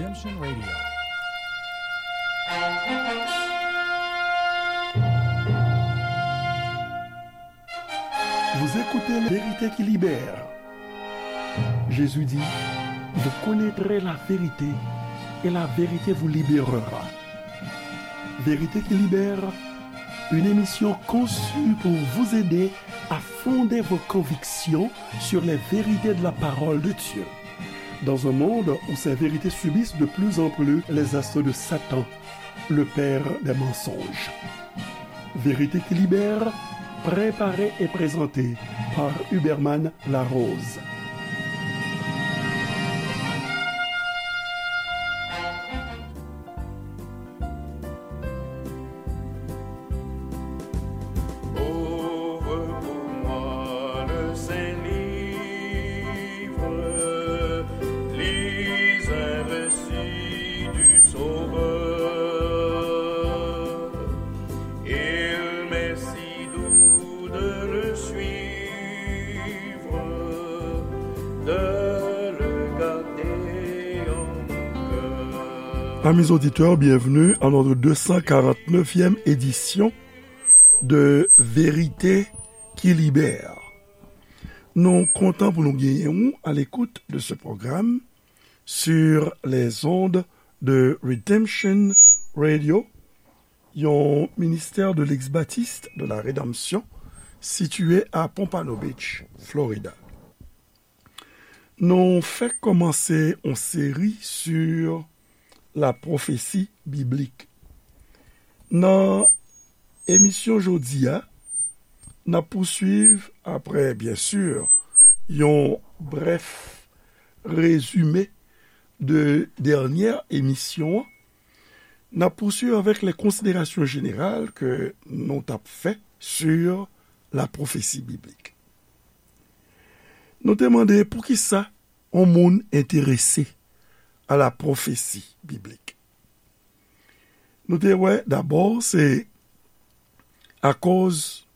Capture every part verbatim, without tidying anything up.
Redemption Radio. Vous écoutez La vérité qui libère. Jésus dit, vous connaîtrez la vérité et la vérité vous libérera. Vérité qui libère, une émission conçue pour vous aider à fonder vos convictions sur les vérités de la parole de Dieu. Dans un monde où ces vérités subissent de plus en plus les assauts de Satan, le père des mensonges. Vérité qui libère, préparée et présentée par Huberman Larose. Ouvre pour moi le Saint Livre, lis un récit du Sauveur. Il m'est si doux de le suivre, de le garder en mon cœur. Amis auditeurs, bienvenue à notre deux cent quarante-neuvième édition de Vérité qui Libère. Nou kontan pou nou genyen ou à l'écoute de ce programme sur les ondes de Redemption Radio, yon ministère de l'ex-baptiste de la rédemption situé à Pompano Beach, Florida. Nou fèk kòmanse yon seri sur la prophétie biblique. Nan emisyon jodi a, n ap pouswiv, apre, byen si, yon brèf rezime de dènyè emisyon an, n ap pouswiv avèk les considérations générales ke nou t ap fè sur la prophétie biblique. Nou te mande poukisa yon moun enterese a la pwofesi biblik. Nou te wè dabò se akoz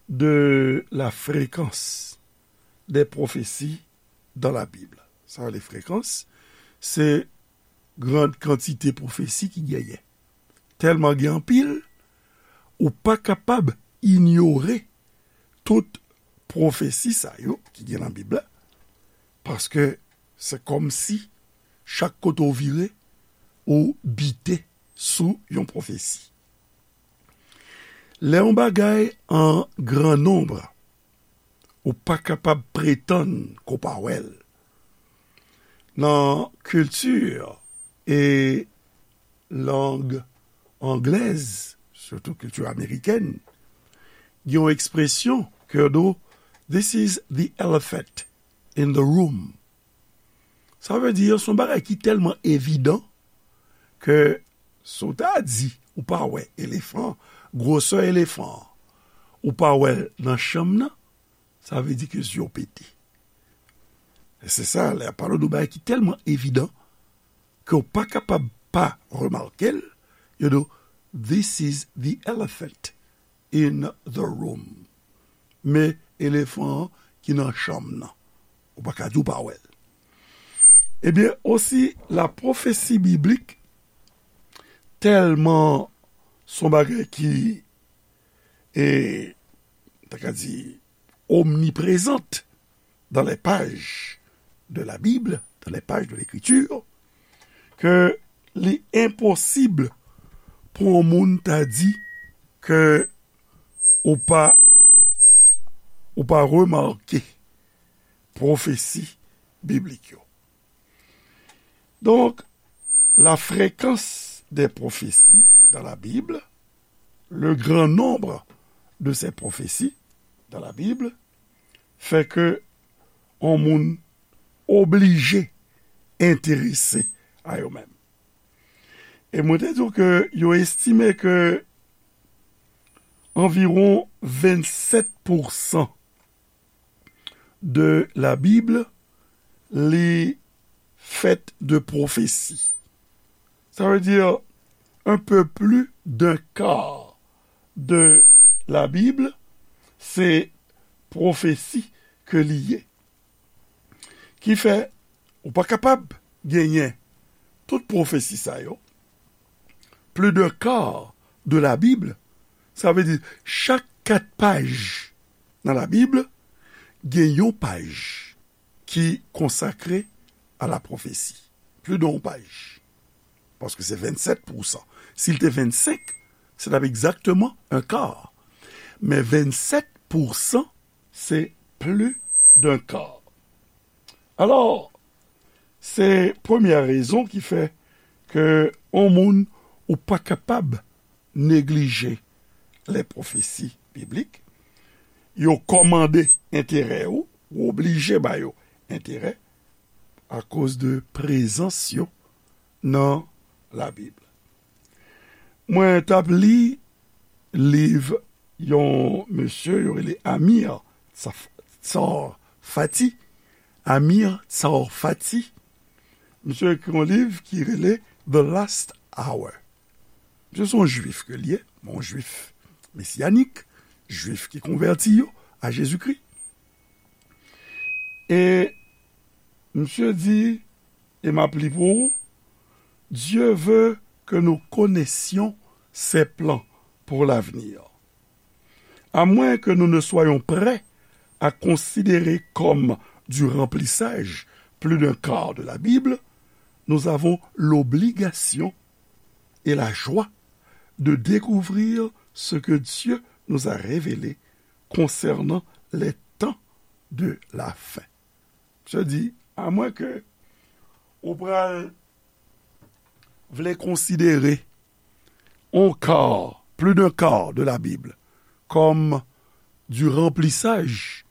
de la fréquence des prophéties dans la Bible. Sa rele frekans, se gran kantite pwofesi ki genyen. Tèlman gen anpil, ou pa kapab inyore tout pwofesi sa yo ki gen nan Bib la, paske se kòmsi chak kote w vire, ou bite sou yon pwofesi. Lè yon bagay an gran nonb, ou pa kapab pretann ke w pa wè l. Nan kilti e lang anglèz, sitou kilti amerikèn, gen yon ekspresyon ke yo di w, "This is the elephant in the room." Sa vle di, se yon bagay ki tèlman evidan ke si w ta di ou pa wè elefan, gwosè elefan an, ou pa wè l nan chanm nan, sa vle di ke zye w pete. E se sa, lè y ap pale w de yon bagay ki tèlman evidan ke w pa kapab pa remake l, yo di w, "This is the elephant in the room." Men elefan an ki nan chanm nan. Ou pa ka di w pa wè l. Ebyen, osi, la pwofesi biblik tèlman se yon bagay ki, e, ta ka di, omniprezant dans les pages de la Bible, dans les pages de l'Écriture, ke li enposib pou yon moun ta di ke ou pa, ou pa remake pwofesi biblik yo. Donc, la fréquence des prophéties dans la Bible, le grand nombre de ces prophéties dans la Bible, fè ke yon moun oblije enterese a yo menm. E mwen te di w ke yo estime ke anviwon vennsèt pousan de la Bible, li fèt de pwofesi. Sa vle di, un peu plus d'un quart de la Bible, se pwofesi ke li ye. Ki fè, ou pa kapab genyen Tout pwofesi sa yo, plus d'un quart de la Bible, sa vle di chak kat paj nan Labib, gen yon paj ki konsakre a la pwofesi. Plis de yon paj. Paske se vennsèt pousan. Si l te vennsenk, se t ap egzakteman un quart. Men vennsèt pousan, se plus d'un quart. Alò, se premyè rezon ki fè ke yon moun ou pa kapab neglije les prophéties bibliques. Yo kòmande enterè ou, ou oblije ba yo enterè akoz de prezans yo nan Labib. Mwen t ap li liv yon mesye yo rele Amir Tsaf-, Tsarfati. Amir Tsarfati. Misye ekri yon liv ki rele The Last Hour. Misye se yon jwif ke l ye, yon jwif mesyanik, jwif ki konvèti yo a Jezikri. E misye di, e m ap li pou ou, Dieu veut que nous connaissions ses plans pour l'avenir. À moins que nous ne soyons prêts à considérer comme du remplissage plus d'un quart de la Bible, nous avons l'obligation et la joie de découvrir ce que Dieu nous a révélé concernant les temps de la fin. Misye di, amwen ke ou pral vle konsidere un quart, plus d'un quart de la Bible, comme du remplissage,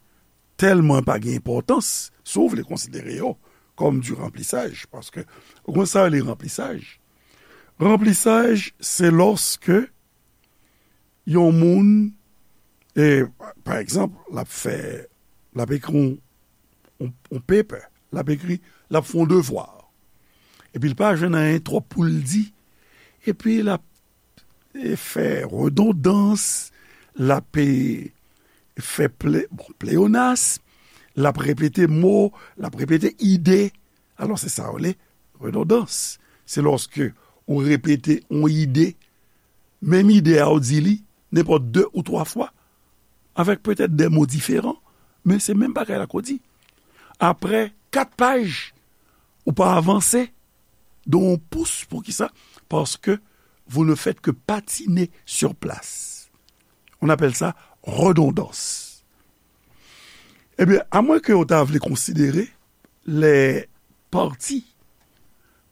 tèlman pa gen enpòtans, si w vle konsidere yo comme du remplissage, paske ou konn sa yo rele remplissage. Remplissage, se lòske yon moun, e, pa egzanp, l ap fè, l ap ekri yon, yon, yon paper, l ap ekri, l ap fè yon devwa. Epi l pa jwenn anyen twòp pou l di. Epi l ap, e, fè redondans, l ap, e, fè ple-, bon, pleyonas, l ap repete mo, l ap repete ide. Alò, se sa yo rele redondans. Se lòske ou repete yon ide, menm ide a ou di li, nenpòt de ou twa fwa, avèk petèt de mo diferan, men se menm bagay la ke w di. Apre kat paj, ou pa avanse de yon pous. Poukisa? Parce que vous ne faites que patiner sur place. On appelle ça redondance. Ebyen, amwen ke w ta vle konsidere les parties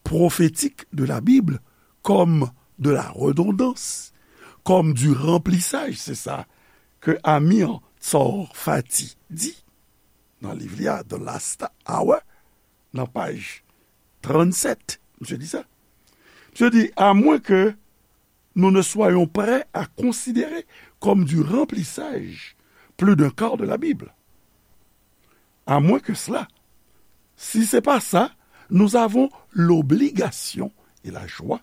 prophétiques de la Bible comme de la redondance, comme du remplissage, se sa ke Amir Tsarfati di nan liv li a, The Last Hour, nan paj trannsèt, misye di sa. Misye di, à moins que nous ne soyons prêts à considérer comme du remplissage plus d'un quart de la Bible. À moins que cela, si c'est pas ça, nous avons l'obligation et la joie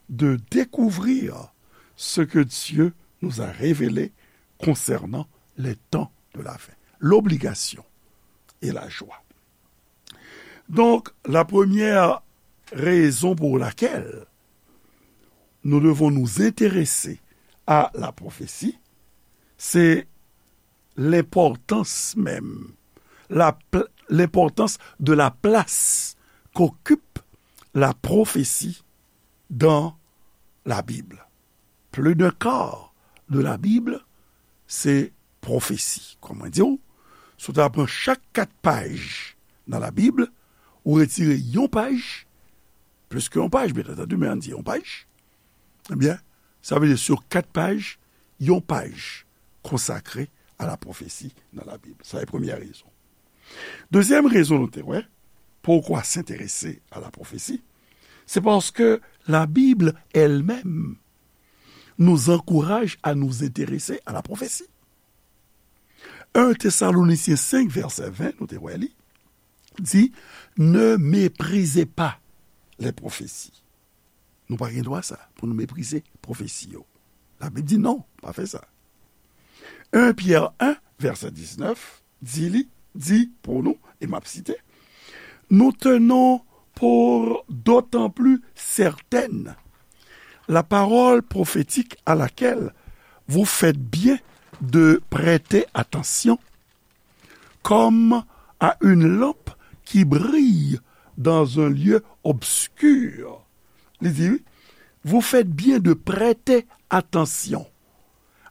de découvrir ce que Dieu nous a révélé concernant les temps de la fin. L'obligation et la joie. Donc, la première raison pour laquelle nous devons nous intéresser à la prophétie, c'est l'importance même, la pl-, l'importance de la place qu'occupe la prophétie dans la Bible. Plus d'un quart de la Bible, se pwofesi. Kòman di w? Si w ta pran chak kat paj nan Labib, ou retire yon paj, plis ke yon paj, byen antandi, men ann di yon paj, ebyen, sa vle di, sur kat paj, yon paj konsakre a la pwofesi nan Labib. Sa se premyè rezon. Dezyèm rezon nou te wè, pourquoi s'intéresser à la prophétie, c'est parce que la Bible elle-même nous encourage à nous intéresser à la prophétie. Un Thessaloniciens cinq, verset vingt, nou te wè li, di, ne méprisez pas les prophéties. Nou pa gen dwa sa, pou nou meprize pwofesi yo. Labib di non, pa fè sa. Un Pierre un, verset dix-neuf, di li, di pou nou, e m ap site, nous tenons pour d'autant plus certaine la parole prophétique à laquelle vous faites bien de prêter attention, comme à une lampe qui brille dans un lieu obscur. Li di, vous faites bien de prêter attention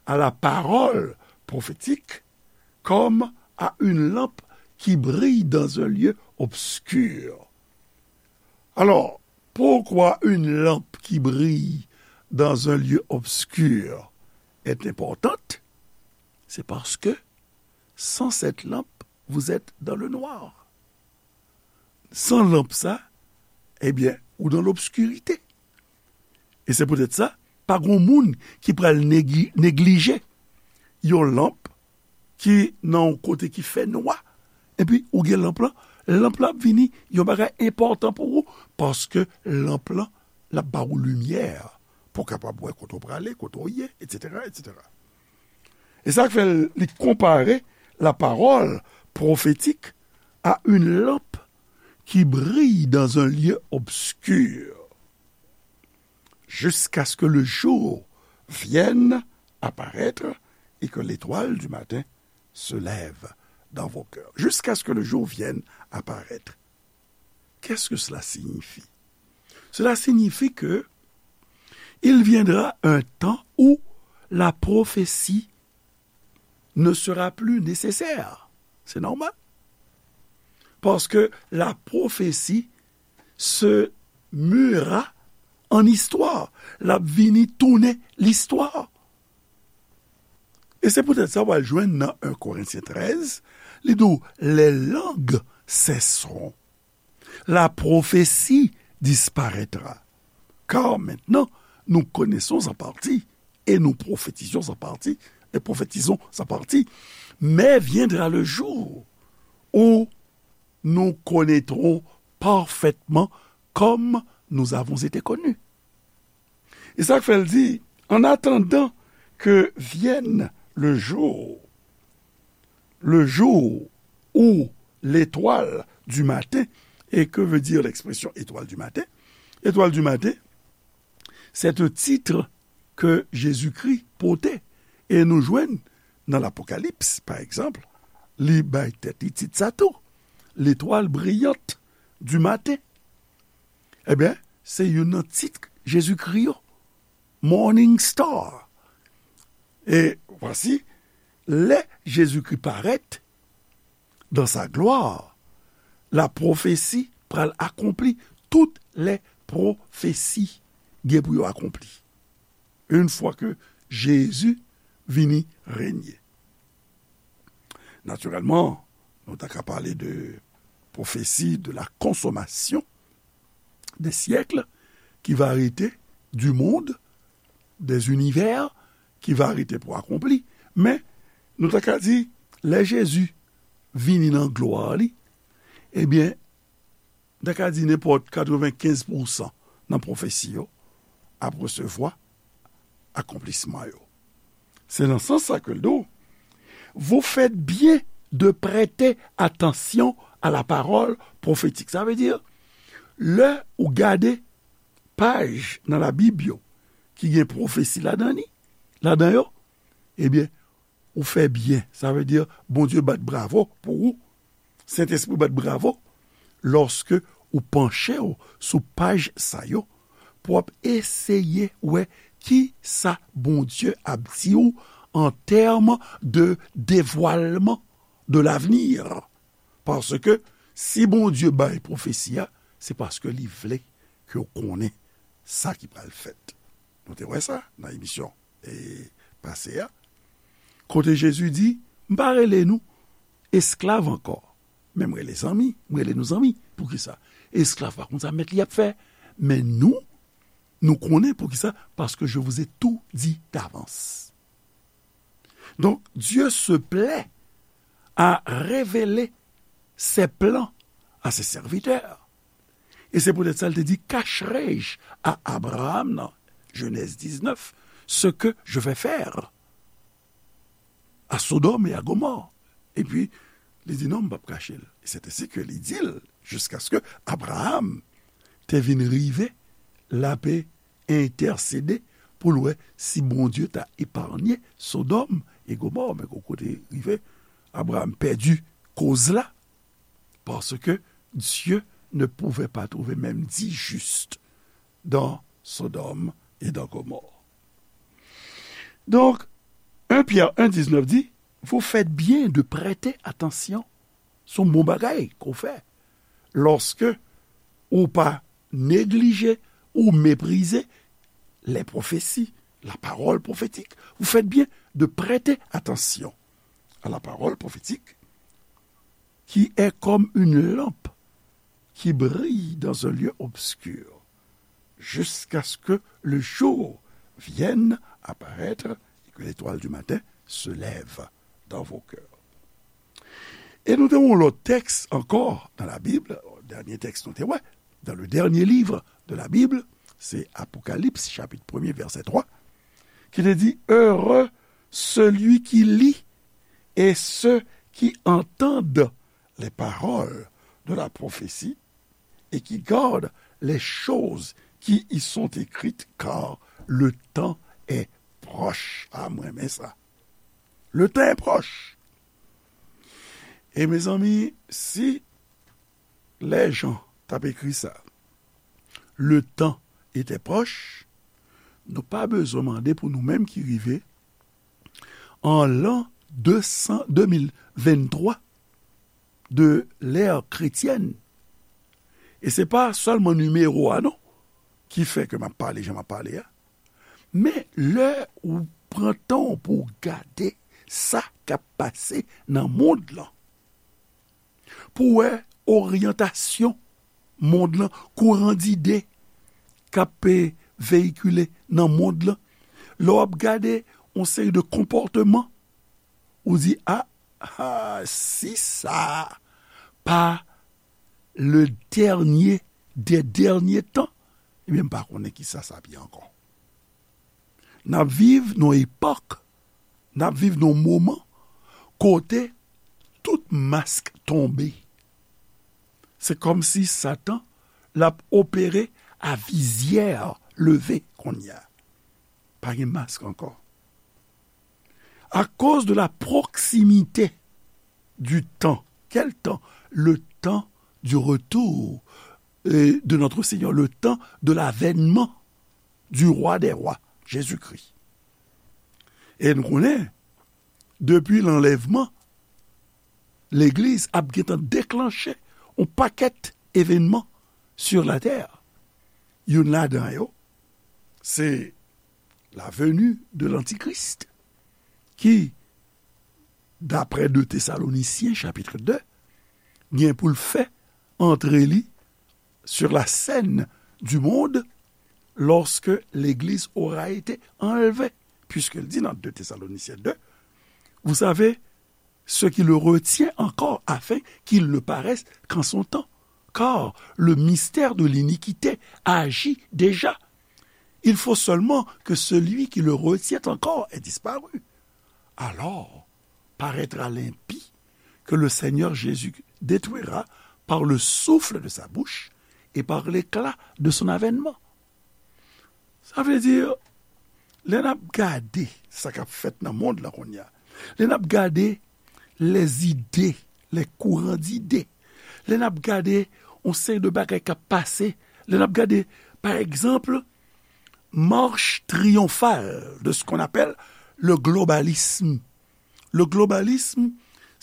à la parole prophétique comme à une lampe qui brille dans un lieu obscur. Alors, pourquoi une lampe qui brille dans un lieu obscur est importante? C'est parce que sans cette lampe, vous êtes dans le noir. San lanp sa, ebyen, ou dans l'obscurité. E se poutèt sa, pa gon moun ki pral negi- neglije yon lanp ki nan yon kote ki fè nwa, epi ou gen lanp lan, lanp lan ap vini yon bagay enpòtan pou ou, paske lanp lan, l ap ba ou limyè pou w kapab wè kote w prale, kote w ye, etsetera, etsetera. E sa k fè l, li konpare la parole prophétique à une lampe qui brille dans un lieu obscur, jusqu'à ce que le jour vienne apparaître et que l'étoile du matin se lève dans vos cœurs. Jusqu'à ce que le jour vienne apparaître. Qu'est-ce que cela signifie? Cela signifie que il viendra un temps où la prophétie ne sera plus nécessaire. C'est normal. Parce que la prophétie se muera en histoire. L ap vini tounen listwa. E se poutèt sa w al jwenn nan un Corinthiens treize, li di w, les langues cesseront. La prophétie disparaîtra. Car maintenant, nous connaissons en partie et nous prophétisons en partie et prophétisons en partie. Mais viendra le jour où nous connaîtrons parfaitement comme nous avons été connus. E sa k fè l di, en attendant que vienne le jour, le jour où l'étoile du matin, et que veut dire l'expression étoile du matin? Étoile du matin, c'est un titre que Jésus-Christ portait. E nou jwenn nan Lapokalips, pa egzanp, li bay tèt li tit sa tou, l'étoile brillante du matin. Ebyen, se youn nan tit Jezikri yo, Morning Star. E vwasi, lè Jezikri parèt dans sa gloire, la prophétie pral akonpli, tout les prophéties gen pou yo akonpli. Une fois que Jésus vini renye. Natirèlman, nou ta ka pale de prophétie de la consommation des siècles, qui va arrêter, du monde, des univers, qui va arrêter pou akonpli. Men, nou ta ka di, lè Jezi vini nan glwa li, ebyen, nou ta ka di nenpòt katrevenkenz pousan nan pwofesi yo ap resevwa akonplisman yo. Se nan sans sa ke l di w, vous faites bien de prêter attention à la parole prophétique. Sa vle di, lè ou gade paj nan Labib yo ki gen pwofesi ladan li, ladan yo, ebyen, ou fè byen. Sa vle di, Bondye bat bravo pou ou. Sentespri bat bravo lòske ou panche w sou paj sa yo pou w ap eseye wè ki sa Bondye ap di w an tèm de devwalman de l'avenir. Paske si Bondye bay pwofesi a, se paske li vle ke w konnen sa ki pral fèt. Nou te wè sa nan emisyon, e, pase a. Kote Jezi di, "M pa rele nou esklav ankò, men m rele zanmi, m rele nou zanmi." Poukisa? Esklav pa konn sa mèt li ap fè, men nou, nou konnen poukisa, paske je vous ai tout dit d'avance. Donc, Dieu se plaît à révéler ses plans à ses serviteurs. E se poutèt sa, l te di, "Cacherai-je à Abraham", nan Genèse dix-neuf, "ce que je vais faire à Sodome et à Gomorrhe?" Epi, li di, "Non, m p ap kache l." E c'est ainsi que li di l, "Jusqu'à ce que Abraham te vin rive, l ape entèsede pou l wè si Bondye ta epaye Sodòm e Gomò. Men gon kote rive, Abraram pèdi koz la, paske Dieu ne pouvait pas trouver même dix justes dans Sodome et dans Gomorrhe. Donk, un Pyè en diznèf di, vous faites bien de prêter attention. Se yon bon bagay ke w fè. Lòske ou pa neglije ou meprize les prophéties, la parole prophétique, vous faites bien de prêter attention à la parole prophétique, qui est comme une lampe qui brille dans un lieu obscur, jusqu'à ce que le jour vienne apparaître et que l'étoile du matin se lève dans vos cœurs. E nou te wè yon lòt tèks ankò nan Labib, dènye tèks nou te wè, dans le dernier livre de la Bible, se Apokalips, chapit premye, vèsè twa, ki te di, Heureux celui qui lit et ceux qui entendent les paroles de la prophétie et qui gardent les choses qui y sont écrites, car le temps est proche. Ah, mwen renmen sa. Le temps est proche. E mezanmi, si lè Jan t ap ekri sa, le temps était proche, nou pa bezwen mande pou nou menm ki rive an lan de san, de mil venntwa de l'ère chrétienne. E se pa sèlman nimewo a non ki fè ke m ap pale jan m ap pale a. Men lè ou pran tan w pou w gade sa k ap pase nan mond lan, pou w wè oryantasyon mond lan, kouran dide k ap, e, veyikile nan mond lan, lè w ap gade yon seri de konpòteman, ou di, a, a, si sa pa le dernier des derniers temps, ebyen, m pa konnen kisa sa ap ye ankò. N ap viv nan yon epòk, n ap viv nan yon moman kote tout mask tonbe. Se kòmsi Satan l ap opere a vizyè leve kounye a. Pa gen mask ankò. À cause de la proximité du temps. Quel temps? Le temps du retour, euh, de notre Seigneur, le temps de l'avènement du roi des rois, Jésus-Christ. E nou konnen, depi lanlèvman, legliz ap gentan deklanche yon pakèt evènman sur la terre. Youn ladan yo, se la venue de l'Antichrist, ki, daprè de Tesalonisyen, chapit de, gen pou l fè antre li sur la scène du monde lorsque l'Église aura été enlevée. Puisqu'il dit dans deux Thessaloniciens deux, vous savez, ce qui le retient encore afin qu'il ne paraisse qu'en son temps. Car le mystère de l'iniquité agit déjà. Il faut seulement que celui qui le retient encore ait disparu. Alors paraîtra l'impie que le Seigneur Jésus détruira par le souffle de sa bouche et par l'éclat de son avènement. Sa vle di, lè n ap gade sa k ap fèt nan mond lan kounye a, lè n ap gade les idées, les courants d'idées, lè n ap gade yon seri de bagay k ap pase, lè n ap gade, pa egzanp, marche triyonfal de ce qu'on appelle le globalisme. Le globalisme,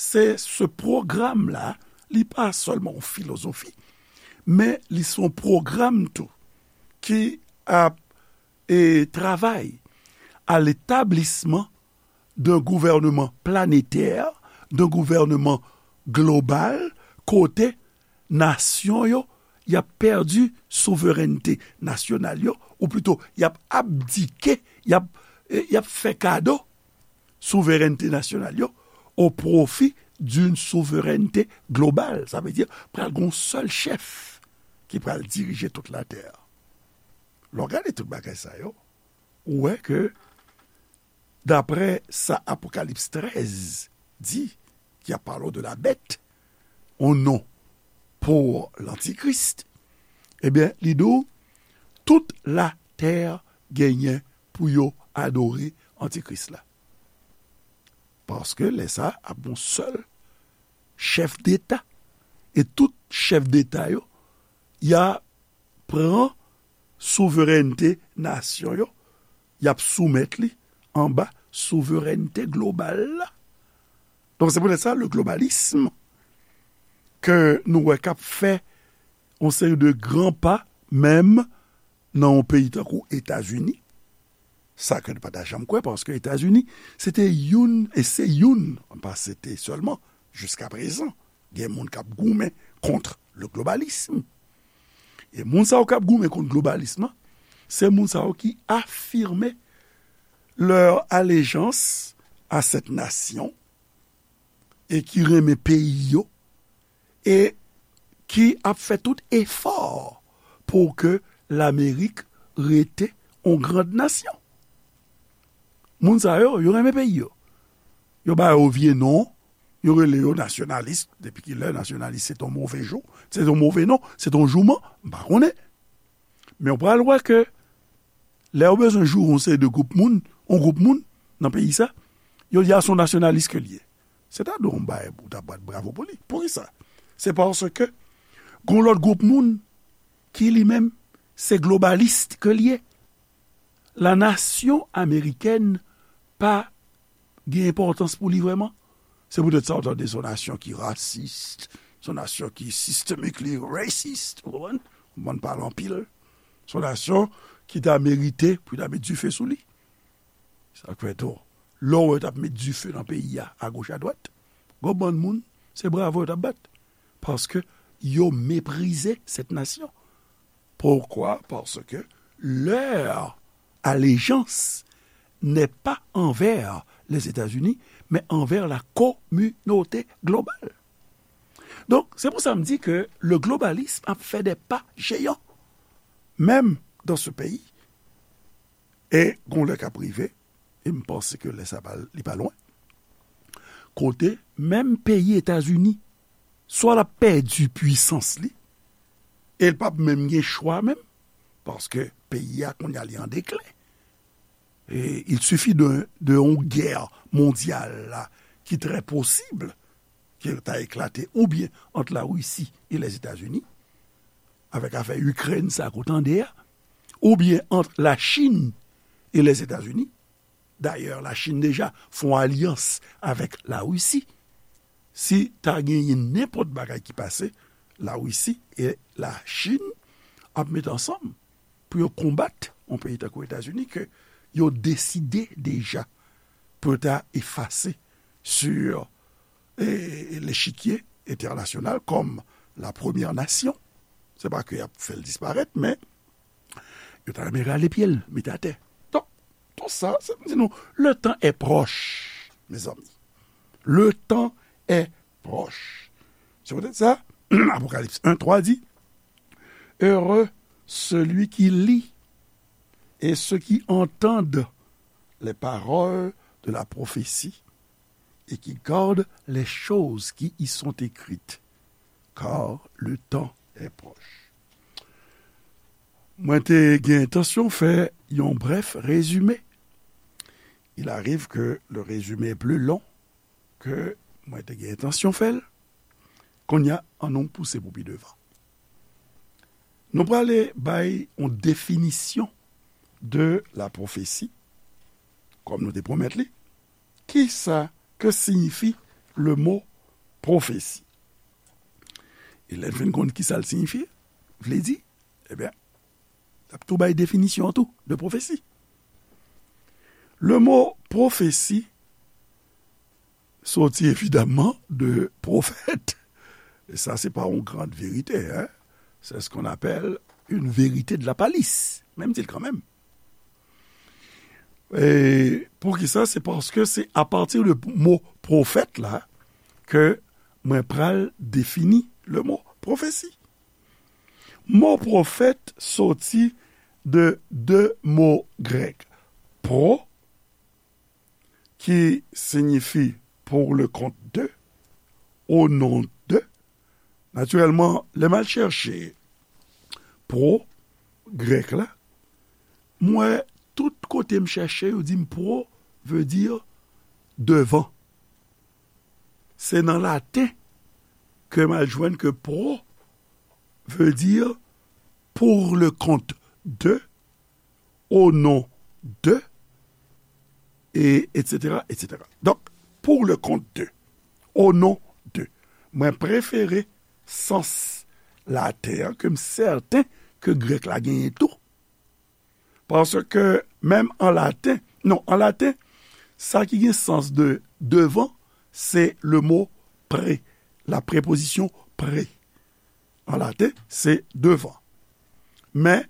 se se pwogram la, li pa sèlman yon filozofi, men li se yon pwogram tou ki ap, e, travay à l'établissement d'un gouvernement planétaire, d'un gouvernement global, kote nasyon yo, y ap pèdi souverènte nasyonal yo, ou plito, y ap abdike, y ap, e, y ap fè kado souverènte nasyonal yo au profit d'une souveraineté globale. Sa vle di, pral gen yon sèl chèf ki pral dirije tout latè. Lè w gade tout bagay sa yo, ou wè ke, daprè sa Apokalips trèz di, ki ap pale de la bête, yon non pou lantikris, Ebyen, li di w, tout latè genyen pou yo adore antikris la. Paske lè sa ap yon sèl chèf deta. E tout chèf deta yo, y a pran souverènte nasyon yo, y ap soumèt li anba souverènte global la. Donk, se poutèt sa, le globalisme ke nou wè k ap fè yon seri de gran pa, menm nan yon peyi tankou Etazini, sa ke nou pa ta janm kwè, paske Etazini, se te youn, e se youn, pa se te sèlman, jiska prezan, gen moun k ap goumen kont le globalisme. E moun sa yo k ap goumen kont globalisme lan, se moun sa yo ki afime leur allégeance à cette nation e ki renmen peyi yo e ki ap fè tout efò pou ke Lamerik rete yon grand nasyon. Moun sa yo, yo renmen peyi yo. Yo ba yo vye non, yo rele yo nasyonalis. Depi ki lè nasyonalis se t on move jou, se t on move non, se t on jouman, m pa konnen. Men w pral wè ke lè yo bezwen joure yon seri de gwoup moun, yon gwoup moun nan peyi sa, yo di a se yon nasyonalis ke l ye. Se ta dwe yon bagay pou w ta bat bravo pou li. Poukisa? Se paske gon lòt gwoup moun ki li menm se globalis ke l ye. La nasyon amerikèn pa gen enpòtans pou li vrèman. Se poutèt sa w tande se yon nasyon ki rasis, se yon nasyon ki sistemikli racist, ou konprann? Ou konprann pale anpil. Se yon nasyon ki ta merite pou yo ta met dife sou li. Sa k fè tou, lè w wè yo t ap met dife nan peyi a, agoch adwat, gon bann moun, se bravo yo t ap bat. Paske yo meprize cette nation. Pourquoi? Parce que leur allégeance n'est pas envers les États-Unis, mais envers la communauté globale. Donk, se pou sa m di ke le globalisme ap fè des pas géants, menm dans ce pays. E gon lè k ap rive, e m panse ke lè sa pa, li pa lwen, kote menm peyi Etazini, swa l ap pèdi pwisans li, e l p ap menm gen chwa menm, paske peyi a kounye a li an deklen. E il suffit de, de yon guerre mondiale la, ki très possible, ki ta eklate oubyen ant Larisi e Lèzetazini, avèk afè Ikrèn sa ke w tande a, oubyen ant Lachin e Lèzetazini. Dayè, Lachin deja fè yon alyans avèk Larisi. Si ta genyen nenpòt bagay ki pase, Larisi e Lachin ap met ansanm pou yo konbat yon peyi tankou Etazini ke yo deside deja pou yo ta efase sou, e, lechikye entènasyonal kòm la premyè nasyon. Se pa ke y ap fè l disparèt, men yo ta renmen rale pye l, mete atè. Donk, tout sa, se pou di nou, le temps est proche, mes amis. Le temps est proche. Se poutèt sa, Apokalips en twa di, Heureux celui qui lit et ceux qui entendent les paroles de la prophétie et qui gardent les choses qui y sont écrites, car le temps est proche. Mwen te gen entansyon fè yon brèf rezime. Il arrive que le résumé est plus long que mwen te gen entansyon fè l. Kounye a, ann nou pouse pou pi devan. Nou prale bay yon definisyon de la prophétie, kòm nou te pwomèt li. Kisa, que signifie le mot prophétie? E lè n fin konn kisa l signifye, vle di, ebyen, l ap tou bay definisyon an tou de pwofesi. Le mot prophétie soti évidemment de prophète. Et ça, c'est pas une grande vérité, hein? C'est ce qu'on appelle une vérité de la palisse. Men m di l kanmenm. E poukisa? Se paske se apati de mo pwofèt la ke mwen pral defini le mo pwofesi. Mo pwofèt soti de de mo grèk, pro, ki siyifi pour le compte de, au nom de. Natirèlman, lè m al chèche pro, grèk la, m wè tout kote m chèche, yo di m pro veut dire devant. Se nan laten ke m al jwenn ke pro veut dire pour le compte de, au nom de, e, et cetera, et cetera. Donk, pour le compte de, au nom de. Mwen prefere sans laten an ke m sèten ke grèk la genyen tou. Paske menm an laten, non, an laten, sa ki gen sans de devant, se le mo pre, la preposition pre. An laten, se devant. Men,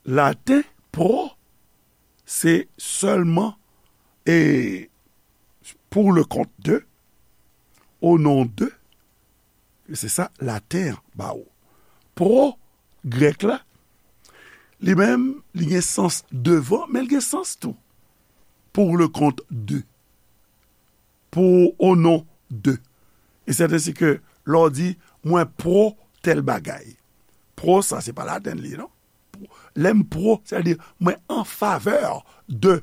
laten, pro, se sèlman, e, pour le compte de, au nom de, se sa laten an ba ou. Pro, grèk la, li menm, li gen sans devant, men li gen sans tou pour le compte de. Pour au nom de. E sèten se ke lè w di, mwen pro tèl bagay. Pro sa, se pa laten li, non? Lè m pro, sètadi mwen an favè de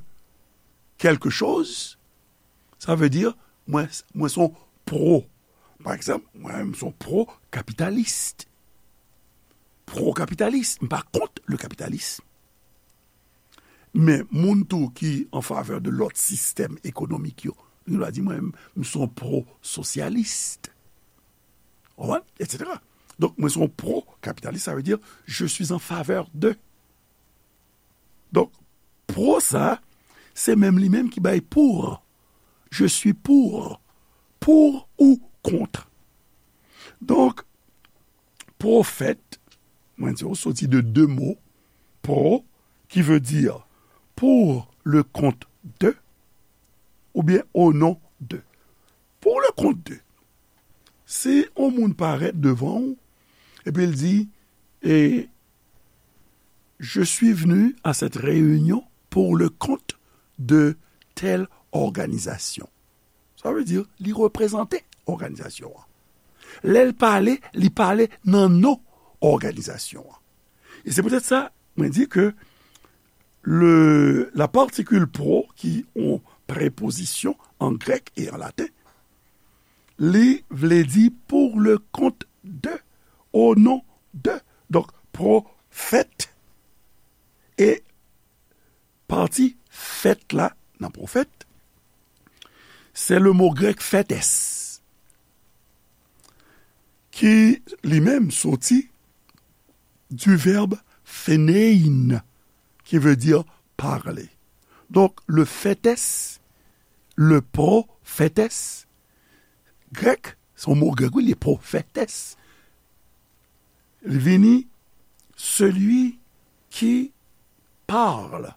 quelque chose, sa vle di mwen, mwen se yon pro. Pa egzanp, mwen menm se yon pro kapitalis. Pro kapitalis, m pa kont le kapitalism. Men moun tou ki an favè de lòt sistèm ekonomik yo, li va di mwen menm, m se yon pro sosyalis. Ou konprann? Et cetera. Donk, mwen se yon pro kapitalis, sa vle di, je suis en faveur de. Donk, pro sa, se menm li menm ki bay pour. Je suis pour. Pour ou contre. Donk, pwofèt, mwen di w, soti de de mo, pro, ki vle di pour le compte de, oubyen au nom de. Pour le compte de. Si yon moun parèt devan w, epi l di, e, je suis venu à cette réunion pour le compte de telle organisation. Sa vle di, li reprezante òganizasyon an. Lè l pale, li pale nan non òganizasyon an. E se poutèt sa, mwen di ke le, la particule pro, ki yon prepozisyon an grèk e an laten, li vle di pour le compte de, au nom de. Donk, pwofèt e pati fèt la nan pwofèt, se le mo grèk fètès, ki li menm soti du verbe phenein, qui veut dire parler. Donk, le fètès, le pwofètès, grèk, se yon mo grèk, wi, li pwofètès. Li vini, celui qui parle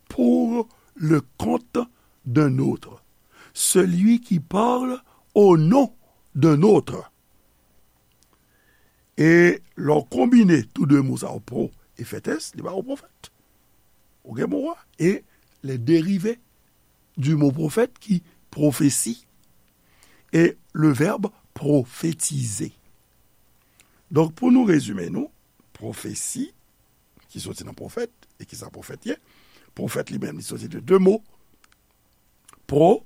pour le compte d'un autre. Celui qui parle au nom d'un autre. E lè w konbine tou de mo sa yo, pro e fètès, li ba ou pwofèt. Ou gen mo a, e les dérivés du mot prophète ki pwofesi e le verbe prophétiser. Donk, pou nou rezime nou, pwofesi, ki soti nan pwofèt, e ki sa pwofèt ye? Pwofèt li menm, li soti de de mo, pro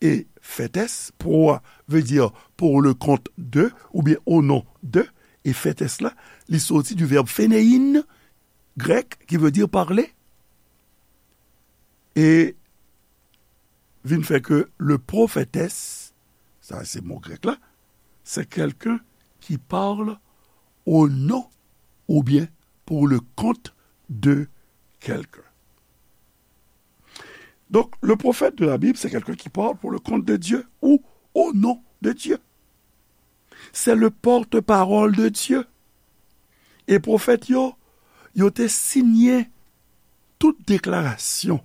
e fètès. Pro a vle di pour le compte de, oubyen au nom de, e fètès la, li soti du verbe phenein, grèk, ki vle di parler. E vin fè ke le pwofètès, sa se mo grèk la, c'est quelqu'un qui parle au nom ou bien pour le compte de quelqu'un. Donc, le prophète de la Bible, c'est quelqu'un qui parle pour le compte de Dieu ou au nom de Dieu. C'est le porte-parole de Dieu. E pwofèt yo, yo te siyen tout deklarasyon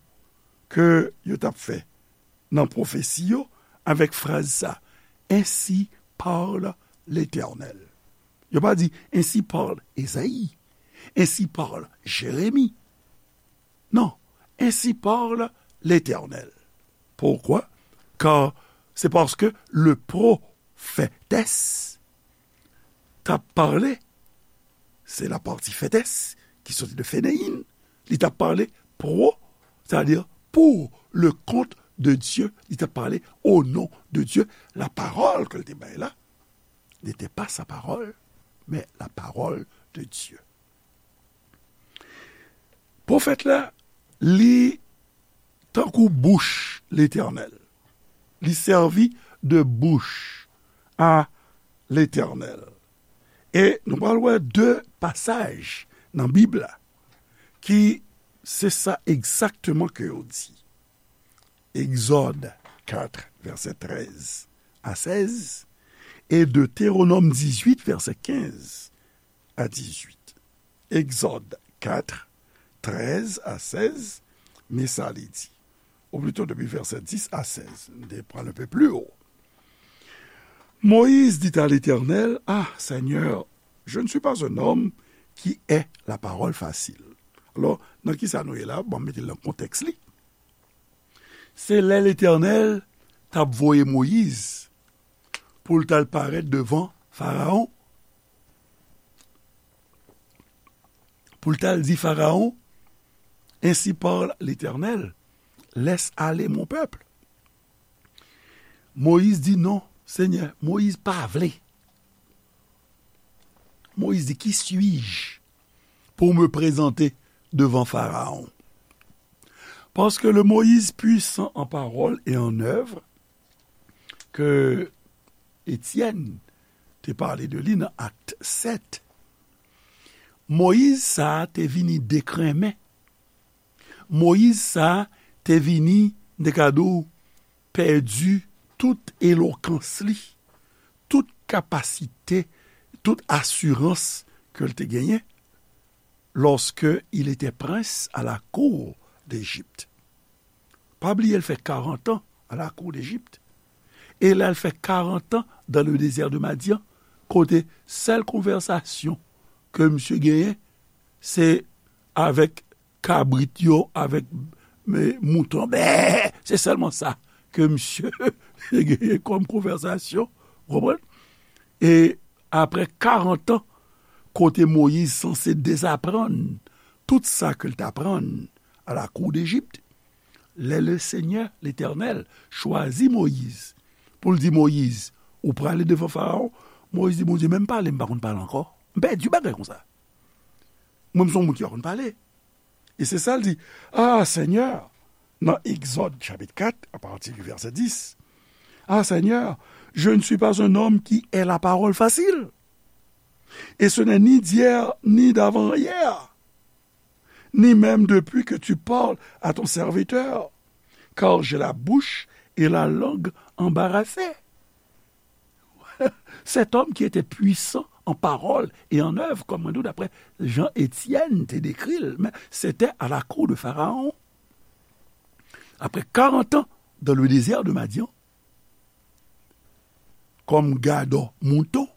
ke yo t ap fè nan pwofesi yo avèk fraz sa, Ainsi parle l'Éternel. Yo pa di, Ainsi parle Ezayi, Ainsi parle Jeremi. Non, Ainsi parle l'Éternel. Pourquoi? Car c'est parce que le prophétesse t ap pale se la partie fètès ki soti de feneyin, li t ap pale pro, c'est-à-dire pour le compte de Dieu, li t ap pale au nom de Dieu. La parole ke l te bay la, n'était pas sa parole, mais la parole de Dieu. Pwofèt la, li tankou bouch Letènèl. Li sèvi de bouch a Letènèl. E nou pral wè de pasaj nan Bib la ki se sa egzakteman ke yo di. Egzòd kat, vèsè trèz a sèz, e Detewonòm dizuit, vèsè kenz a dizuit. Egzòd kat, trèz a sèz, men sa li di. Ou plito depi vèsè dis a sèz, m te pran un peu plus haut. Moïse dit à l'Éternel, Ah, Seigneur, je ne suis pas un homme qui ait la parole facile. Alò, nan ki sa nou ye la? Bon, mete l nan kontèks li. Se lè Letènèl t ap voye Moyiz pou l t al parèt devan Farawon, pou l t al di Farawon, Ainsi parle l'Éternel, laisse aller mon peuple. Moyiz di, Non, Senyè, Moyiz pa vle. Moyiz di, Qui suis-je pour me présenter devant Pharaon? Parce que le Moïse puissant en parole et en œuvre que Etienne te pale de li nan Akt sèt, Moyiz sa a te vini dekrenmen. Moyiz sa a te vini, m te ka di w, pèdi tout elokans li, tout kapasite, tout asirans ke l te genyen lorsque il était prince à la cour d'Égypte. Pa bliye, l fè karant an à la cour d'Égypte. E l al fè karant an dans le désert de Madian, kote sèl konvèsasyon ke misye genyen, se avèk kabrit yo, avèk, e, mouton. Bè! Se sèlman sa ke misye genyen kòm konvèsasyon, ou konprann? E apre karant an, kote Moyiz sanse dezaprann tout sa ke l t aprann à la cour d'Égypte, lè le Senyè, Letènèl, chwazi Moyiz pou l di, Moyiz, ou prale devan Farawon? Moyiz di, Bondye, men m pale, m pa konn pale ankò. M pèdi bagay konsa. Mwen, m se yon moun ki pa konn pale. E se sa l di, Ah, Seigneur, nan Egzòd chapit kat, apati di vèsè dis, Ah, Seigneur, je ne suis pas un homme qui ait la parole facile. Et ce n'est ni d'hier, ni d'avant-hier, ni même depuis que tu parles à ton serviteur, car j'ai la bouche et la langue embarrassées. Cet homme qui était puissant en parole et en œuvre, comme on dit, d'après Jean Étienne te décrit, mais c'était à la cour de Pharaon. Après quarante ans dans le désert de Madian, comme gardant mouton,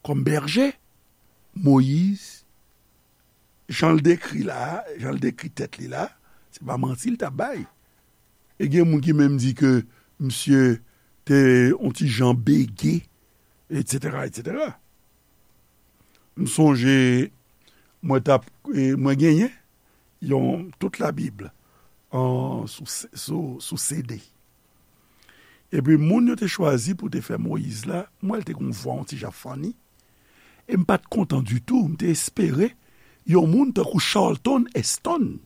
kòm bèje, Moyiz, jan l dekri la, jan l dekri tèt li la, se pa manti l t ap bay. E gen moun ki menm di ke misye te yon ti jan bege, etsetera, etsetera. M sonje, mwen t ap, e, mwen genyen yon, tout Labib an, sou, sou, sou C D. Epi moun yo te chwazi pou te fè Moyiz la, m wè l te gon vwa yon ti jan funny. E m pa t kontan ditou, m te espere yon moun tankou Charlton Heston,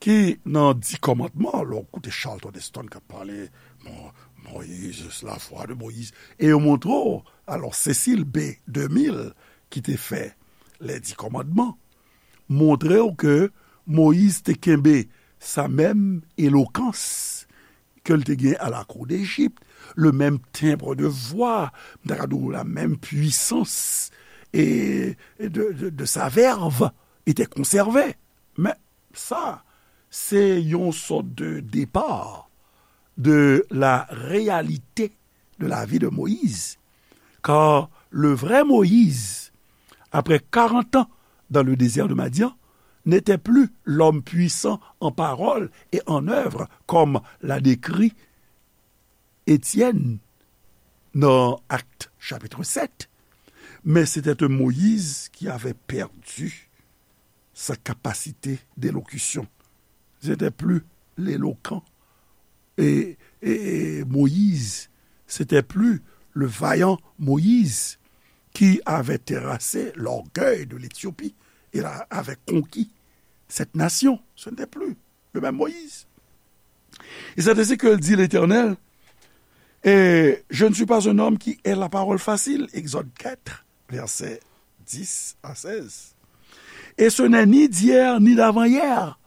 ki nan Di Kòmandman, lè w koute Charlton Heston k ap pale, Mo-, Moïse, la foi de Moïse, e yo montre w, alò, Cécile B deux mille, ki te fè Les Dix Commandements, montre w ke Moyiz te kenbe sa menm elokans ke l te gen à la cour d'Égypte, le même timbre de voix, m ta ka di w la menm pwisans e, e de, de, de sa verve était conservée. Men sa, se yon sòt de départ de la réalité de la vie de Moïse. Car le vrai Moïse, après quarante ans dans le désert de Madian, n'était plus l'homme puissant en parole et en œuvre, comme l'a décrit Étienne dans Actes chapitre sept, Mais c'était un Moïse qui avait perdu sa capacité d'élocution. C'était plus l'éloquent et, et, et Moïse, c'était plus le vaillant Moïse qui avait terrassé l'orgueil de l'Éthiopie et la- avait conquis cette nation. Ce n'était plus le même Moïse. Et c'est ainsi que dit l'Éternel, et je ne suis pas un homme qui ait la parole facile, Exode quatre, versets dix à seize. Et ce n'est ni d'hier ni d'avant-hier.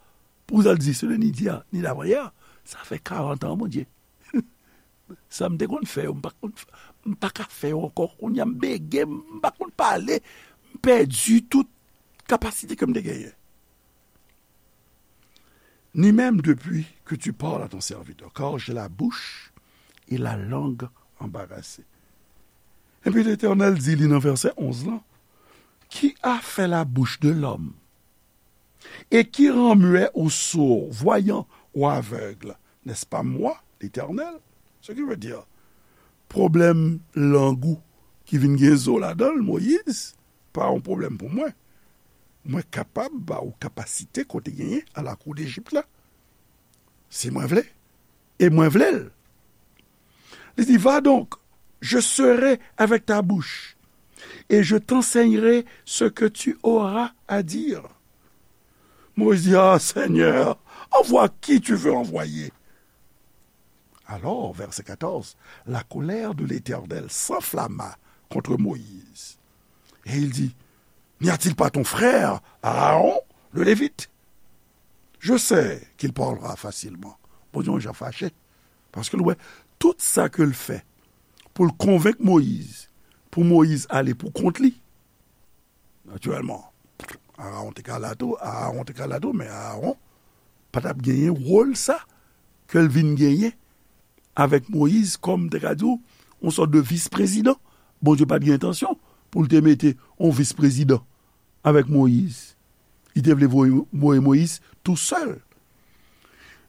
Pou sa l di, ce n'est ni d'hier ni d'avant-hier. Sa fè karant an, Bondye. Sa m te konn fè yo, m pa konn, m pa ka fè yo ankò. Kounye a m bege, m pa konn pale, m pèdi tout kapasite ke m te genyen. Ni même depuis que tu parles à ton serviteur, car j'ai la bouche et la langue embarrassées. Epi Letènèl di li nan vèsè onz lan, qui a fait la bouche de l'homme et qui rend muet ou sourd, voyant ou aveugle, n'est-ce pas moi, l'Éternel? Ce qui veut dire, pwoblèm lang ou ki vin gen zo ladan l, Moyiz, pa yon pwoblèm pou mwen. Mwen kapab ba ou kapasite kote genyen a lakou Dejip la. Si mwen vle, e mwen vle l. Li di, va donc, je serai avec ta bouche, et je t'enseignerai ce que tu auras à dire. Moïse dit, ah Seigneur, envoie qui tu veux envoyer. Alors, verset quatorze, la colère de l'Éternel s'enflamma contre Moïse. Et il dit, n'y a-t-il pas ton frère Aaron, le Lévite? Je sais qu'il parlera facilement. Bondye yon jan fache. Paske l wè tout sa ke l fè pou l konvenk Moyiz, pou Moyiz ale pou kont li. Natirèlman, Aaron te ka la tou, Aaron te ka la tou, men Aaron pa t ap genyen wòl sa ke l vin genyen avèk Moyiz kòm, te ka di w, yon sòt de vis prezidan. Bondye pa t gen entansyon pou l te mete yon vis prezidan avèk Moyiz. Li te vle voye, voye Moyiz tou sèl.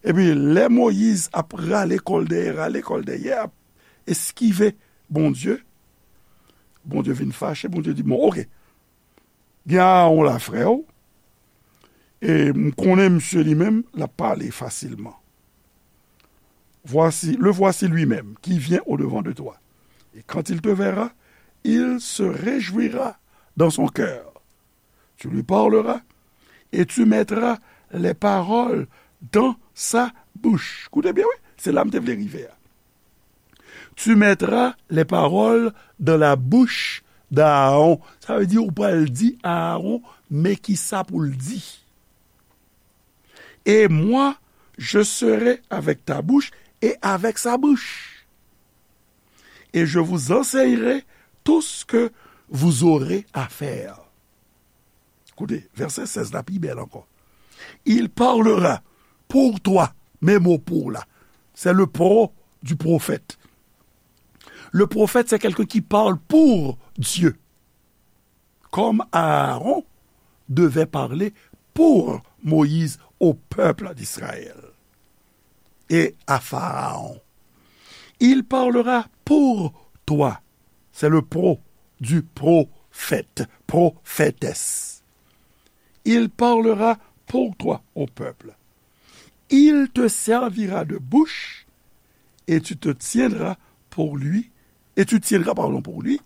Epi, lè Moyiz ap rale kò l dèyè, rale kò l dèyè, ap eskive Bondye, Bondye vin fache, Bondye di, bon, oke, gen Aaron la, frè w, e m konnen misye li menm, l ap pale fasilman. Voici, le voici lui-même qui vient au-devant de toi. Et quand il te verra, il se réjouira dans son cœur. Tu lui parleras et tu mettras les paroles dans sa bouche. Koute byen, wi, se la m te vle rive a. Tu mettras les paroles dans la bouche d'Aaron. Sa vle di, ou pral di Aaron, men ki sa pou l di. Et moi, je serai avec ta bouche et avec sa bouche. Et je vous enseignerai tout ce que vous aurez à faire. Koute, vèsè sèz la pi bèl ankò. Il parlera pour toi. Men mo pour la. C'est le pro du prophète. Le prophète, c'est quelqu'un qui parle pour Dieu. Comme Aaron devait parler pour Moïse au peuple d'Israël et à Pharaon. Il parlera pour toi. C'est le pro du prophète, prophétesse. Il parlera pour toi au peuple. Il te servira de bouche et tu te tiendras pour lui, et tu tiendras, pardon, pour lui,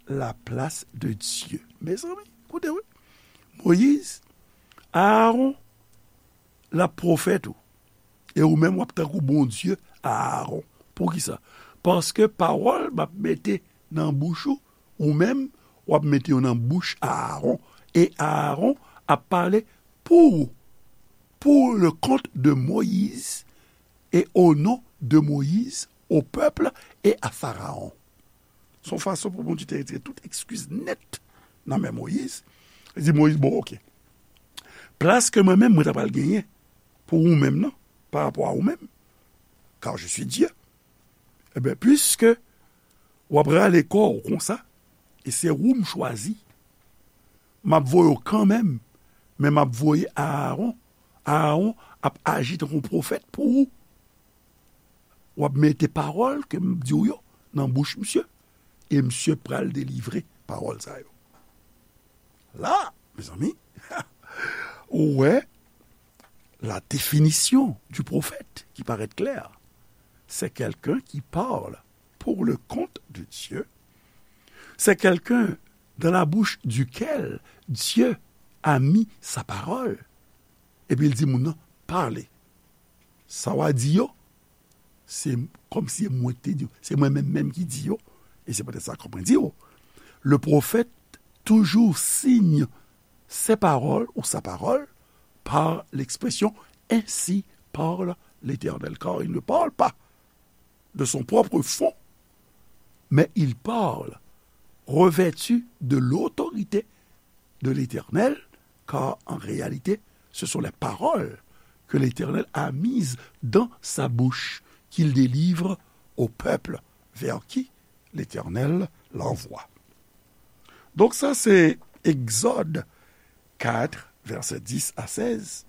la place de Dieu. Mezanmi, koute, wi. Moyiz, Aaron, l ap pwofèt ou. E ou menm, w ap tankou Bondye Aaron. Poukisa? Paske pawòl m ap mete nan bouch ou, ou menm, w ap mete yo nan bouch Aaron. E Aaron ap pale pou ou, pour le compte de Moïse, et au nom de Moïse, au peuple et à Pharaon. Se yon fason pou Bondye te retire tout eskiz nèt nan men Moyiz. Li di Moyiz, bon, oke. Plas ke mwen menm, mwen ta pral genyen pou ou menm nan, pa rapò a ou menm, car je suis Dieu. Ebyen, piske w ap rale kò w konsa, e se ou m chwazi, m ap voye w kanmenm, men m ap voye Aaron. Aaron ap aji tankou yon pwofèt pou ou. W ap mete pawòl ke m di w yo nan bouch misye, e misye pral delivre pawòl sa yo. La, mezanmi, ou wè la définition du prophète qui paraît claire. C'est quelqu'un qui parle pour le compte de Dieu. C'est quelqu'un dans la bouche duquel Dieu a mis sa parole. Epi l di moun nan, pale. Sa w a di yo, se kòmsi mwen ki te di yo. Se mwen menm menm ki di yo. E se poutèt sa, kòm mwen di yo, le prophète toujours signe ses paroles ou sa parole par l'expression ainsi parle l'Éternel, car il ne parle pas de son propre fonds, mais il parle revêtu de l'autorité de l'Éternel, car en réalité, ce sont les paroles que l'Éternel a mises dans sa bouche, qu'il délivre au peuple vers qui l'Éternel l'envoie. Donk sa se Egzòd kat, vèsè dis a sèz.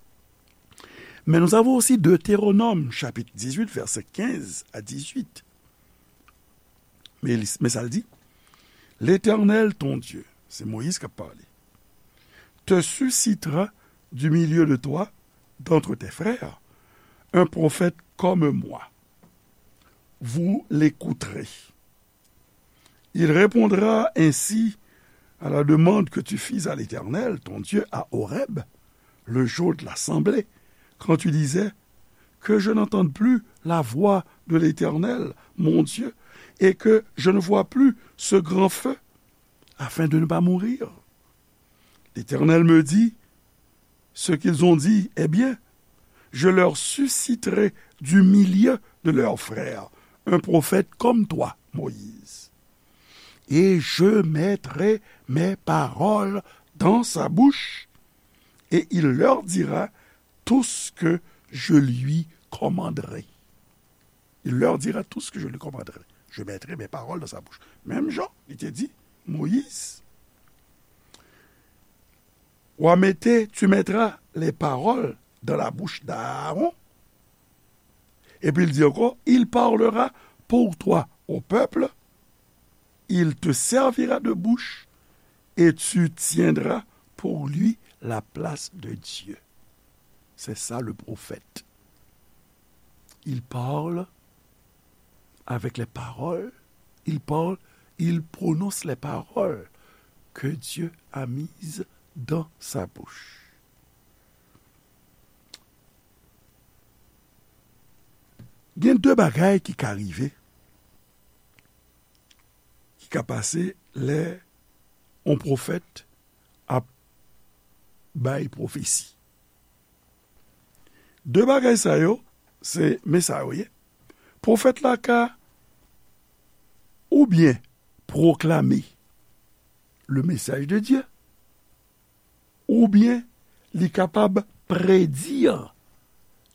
Mais nous avons aussi Deutéronome, chapitre dix-huit, versets quinze à dix-huit. Men, li- men sa l di, L'Éternel, ton Dieu, se Moyiz k ap pale, te suscitera du milieu de toi, d'entre tes frères, un prophète comme moi. Vous l'écouterez. Il répondra ainsi à la demande que tu fis à l'Éternel, ton Dieu, à Horeb, le jour de l'assemblée, quand tu disais, que je n'entende plus la voix de l'Éternel, mon Dieu, et que je ne vois plus ce grand feu, afin de ne pas mourir. L'Éternel me dit, ce qu'ils ont dit est bien. Je leur susciterai du milieu de leurs frères un prophète comme toi, Moïse. Et je mettrai mes paroles dans sa bouche, et il leur dira tout ce que je lui commanderai. Il leur dira tout ce que je lui commanderai. Je mettrai mes paroles dans sa bouche. Menm jan li te di Moyiz, w a mete, tu mettras les paroles dans la bouche d'Aaron. Epi l di ankò, il parlera pour toi au peuple, il te servira de bouche et tu tiendras pour lui la place de Dieu. C'est ça le prophète. Il parle avec les paroles, il parle, il prononce les paroles que Dieu a mises dans sa bouche. Gen de bagay ki ka rive, ki ka pase lè yon pwofèt ap bay pwofesi. De bagay sa yo, se men sa yo ye. Pwofèt la ka oubyen pwoklame le message de Dieu, oubyen li kapab predi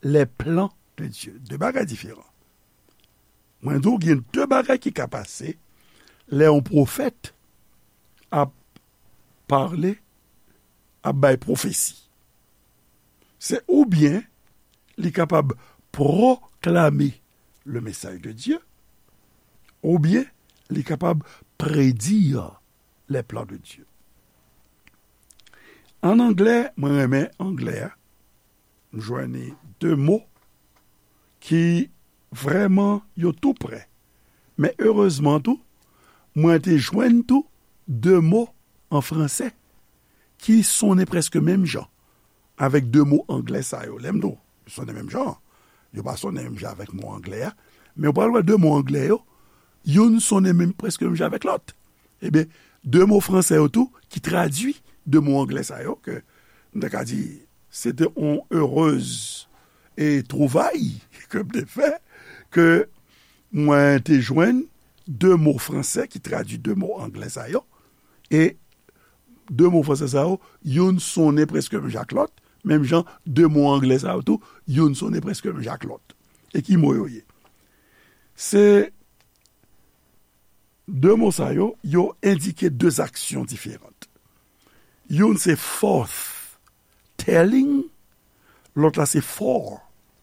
les plans de Dieu. De bagay diferan. Mwen di w gen de bagay ki ka pase lè yon pwofèt ap pale, ap bay pwofesi. Se oubyen li kapab pwoklame le message de Dieu, oubyen li kapab predi les plans de Dieu. An anglè, mwen renmen anglè a, m jwenn de mo ki vrèman yo tou prè. Men erezman tou, mwen te jwenn tou de mo an fransè ki sonnen prèske menm jan avèk de mo anglè sa yo. Lè m di w sonnen menm jan, yo pa sonnen menm jan avèk mo anglè a, men w pral wè de mo anglè yo, youn sonnen menm, prèske menm jan avèk lòt. Ebyen, de mo fransè yo tou ki tradui de mo anglè sa yo, ke m ta ka di, se te yon erez e twouvay ke m te fè, ke mwen te jwenn de mo fransè ki tradui de mo anglè sa yo, e de mo fransè sa yo, youn sonnen prèske menm jan ak lòt, menm jan de mo anglè sa yo tou, youn sonnen prèske menm jan ak lòt. E ki mo yo ye? Se de mo sa yo, yo endike de aksyon diferan. Youn se forth telling, lòt la se fore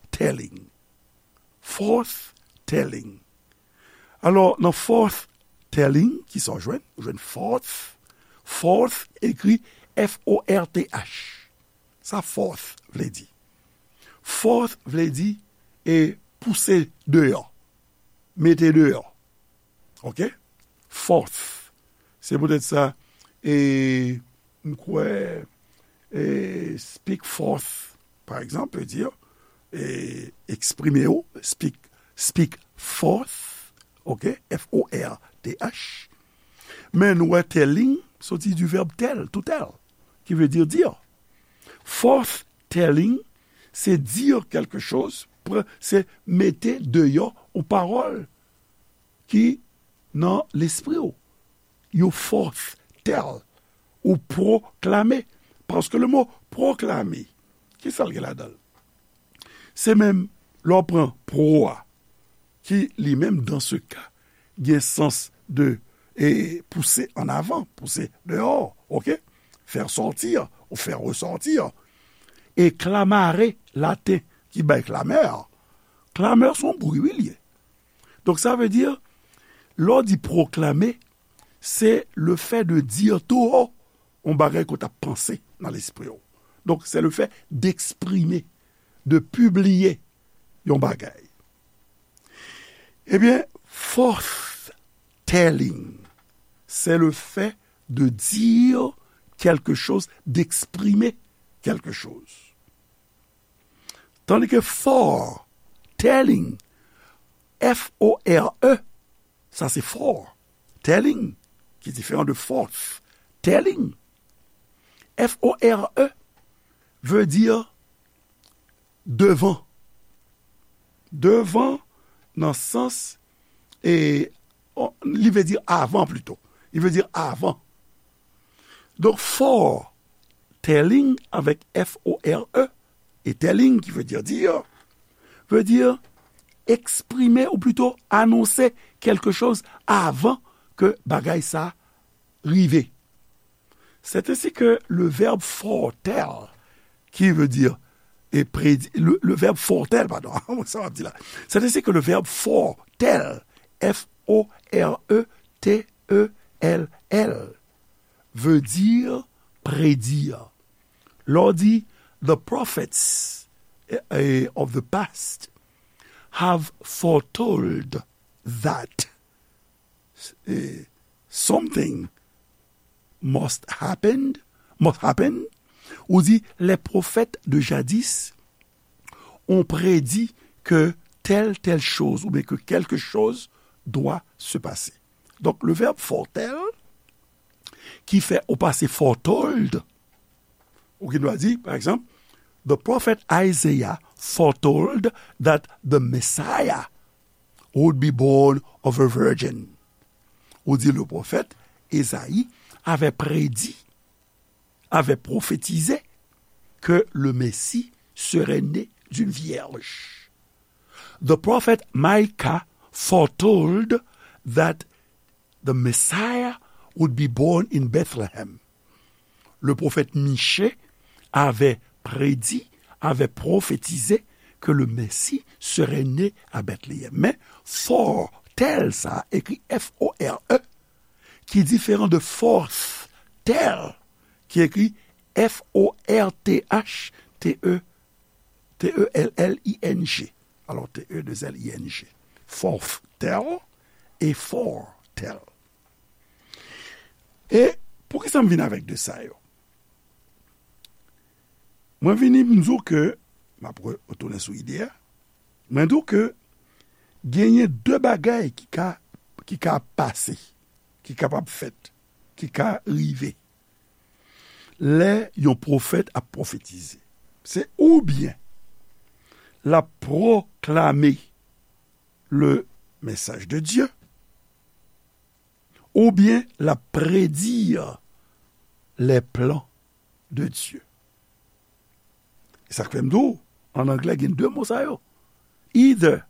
telling. Forth telling. Alò, nan forth Telling, ki sa w jwenn? Ou jwenn forth. Forth ekri F O R T H. Sa forth vle di? Forth vle di e pouse deyò, mete deyò. Oke? Forth. Se poutèt sa, e, m kwè, e, speak forth, pa egzanp, vle di, e, eksprime w, speak, speak forth, oke? F O R T H. Men nou wè telling soti du verbe tell, to tell, ki vle di dire. Forth telling, se dire quelque chose, pr-, se mete deyò yon pawòl ki nan lespri w. You forth tell, ou pwoklame. Paske le mo pwoklame, ki sa l gen ladan l? Se menm lè w pran pro a, ki li menm, dans ce cas, gen sans de, e, pouse an avan, pouse deyò, oke? Faire sortir ou faire ressortir. E clamare, laten, ki bay clameur. Clameur se yon bri, wi, li ye. Donk, sa vle di, lè w di pwoklame, se le fait de dire tout haut yon bagay ke w t ap panse nan lespri w. Donk, se le fait d'exprimer, de publier yon bagay. Ebyen, forth telling, c'est le fait de dire quelque chose, d'exprimer quelque chose. Tandis que fore telling, F O R E, sa se fore telling, ki diferan de forth telling. F O R E vle di devan. Devan nan sans, e, o-, li vle di avan plito. Li vle di avan. Donk, fore telling avèk F O R E, e telling ki vle di dire, vle di eksprime ou plito anonse quelque chose avan ke bagay sa rive. C'est ainsi que le verbe foretell, qui veut dire, et prédi-, le, le verbe foretell, pardon, sa m ap di la. C'est ainsi que le verbe foretell, F O R E T E L L, veut dire prédire. Lè w di, the prophets, eh, eh, of the past have foretold that, eh, something must happened, must happen. Ou di, les prophètes de jadis ont prédit que telle, telle chose, ou bien que quelque chose doit se passer. Donk, le verbe foretell, ki fè ou pase foretold, ou gen dwa di, pa egzanp, the prophet Isaiah foretold that the Messiah would be born of a virgin. Ou di, le prophète Ésaïe avait prédit, avait prophétisé que le Messie serait né d'une vierge. The prophet Micah foretold that the Messiah would be born in Bethlehem. Le prophète Michée avait prédit, avait prophétisé que le Messie serait né à Bethléem. Men, foretell sa, écrit F O R E, ki diferan de forth tell, ki écrit F O R T H T E, T E L L I N G. Alò, T E deux L I N G. Forth tell e fore tell. E poukisa m vin avèk de sa yo? Mwen vini, m di w ke, m ap re-, retounen sou ide a, mwen di w ke genyen de bagay ki ka, ki ka pase, ki kapab fèt, ki ka rive lè yon pwofèt ap pwofetize. Se oubyen l ap pwoklame le message de Dieu, oubyen l ap predi les plans de Dieu. E sa k fè m di w, an anglè, gen de mo sa yo. Either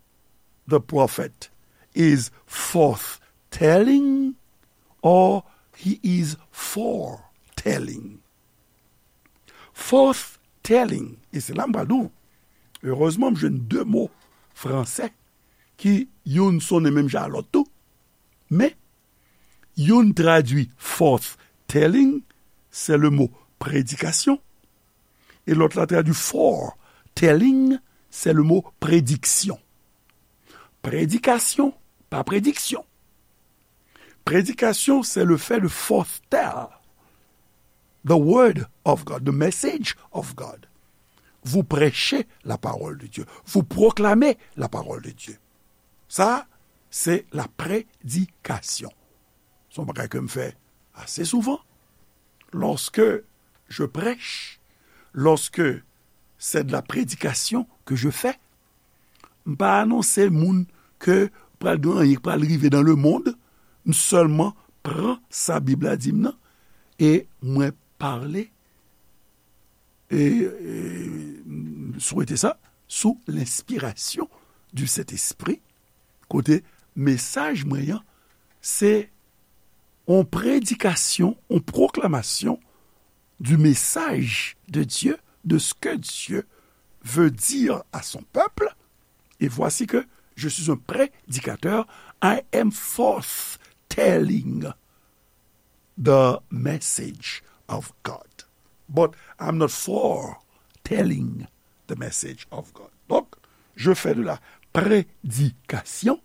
the prophet is forth telling or he is foretelling. Forth telling, e se la m pral di w, erezman m jwenn de mo fransè ki youn sonnen menm jan a lòt tou, men Youn tradui forth telling, c'est le mot prédication, e lòt la tradui foretelling, c'est le mot prédiction. Prédication, pa prédiction. Prédication, c'est le fait de foretell the word of God, the message of God. Vous prêchez la parole de Dieu. Vous proclamez la parole de Dieu. Ça, c'est la prédication. C'est un bagay que je fais assez souvent. Lorsque je prêche, lorsque c'est de la prédication que je fais, m pa anonse moun ke pral gen anyen k pral rive dans le monde, m sèlman pran sa Bib la di m nan, e mwen pale, e, e, m swete sa, sou lenspirasyon du Sentespri, kote mesaj mwen an, se yon predikasyon, yon pwoklamasyon du message de Dieu, de ce que Dieu veut dire à son peuple. Et voici que je suis un prédicateur. I am forth telling the message of God. But I'm not foretelling the message of God. Donc, je fais de la prédication,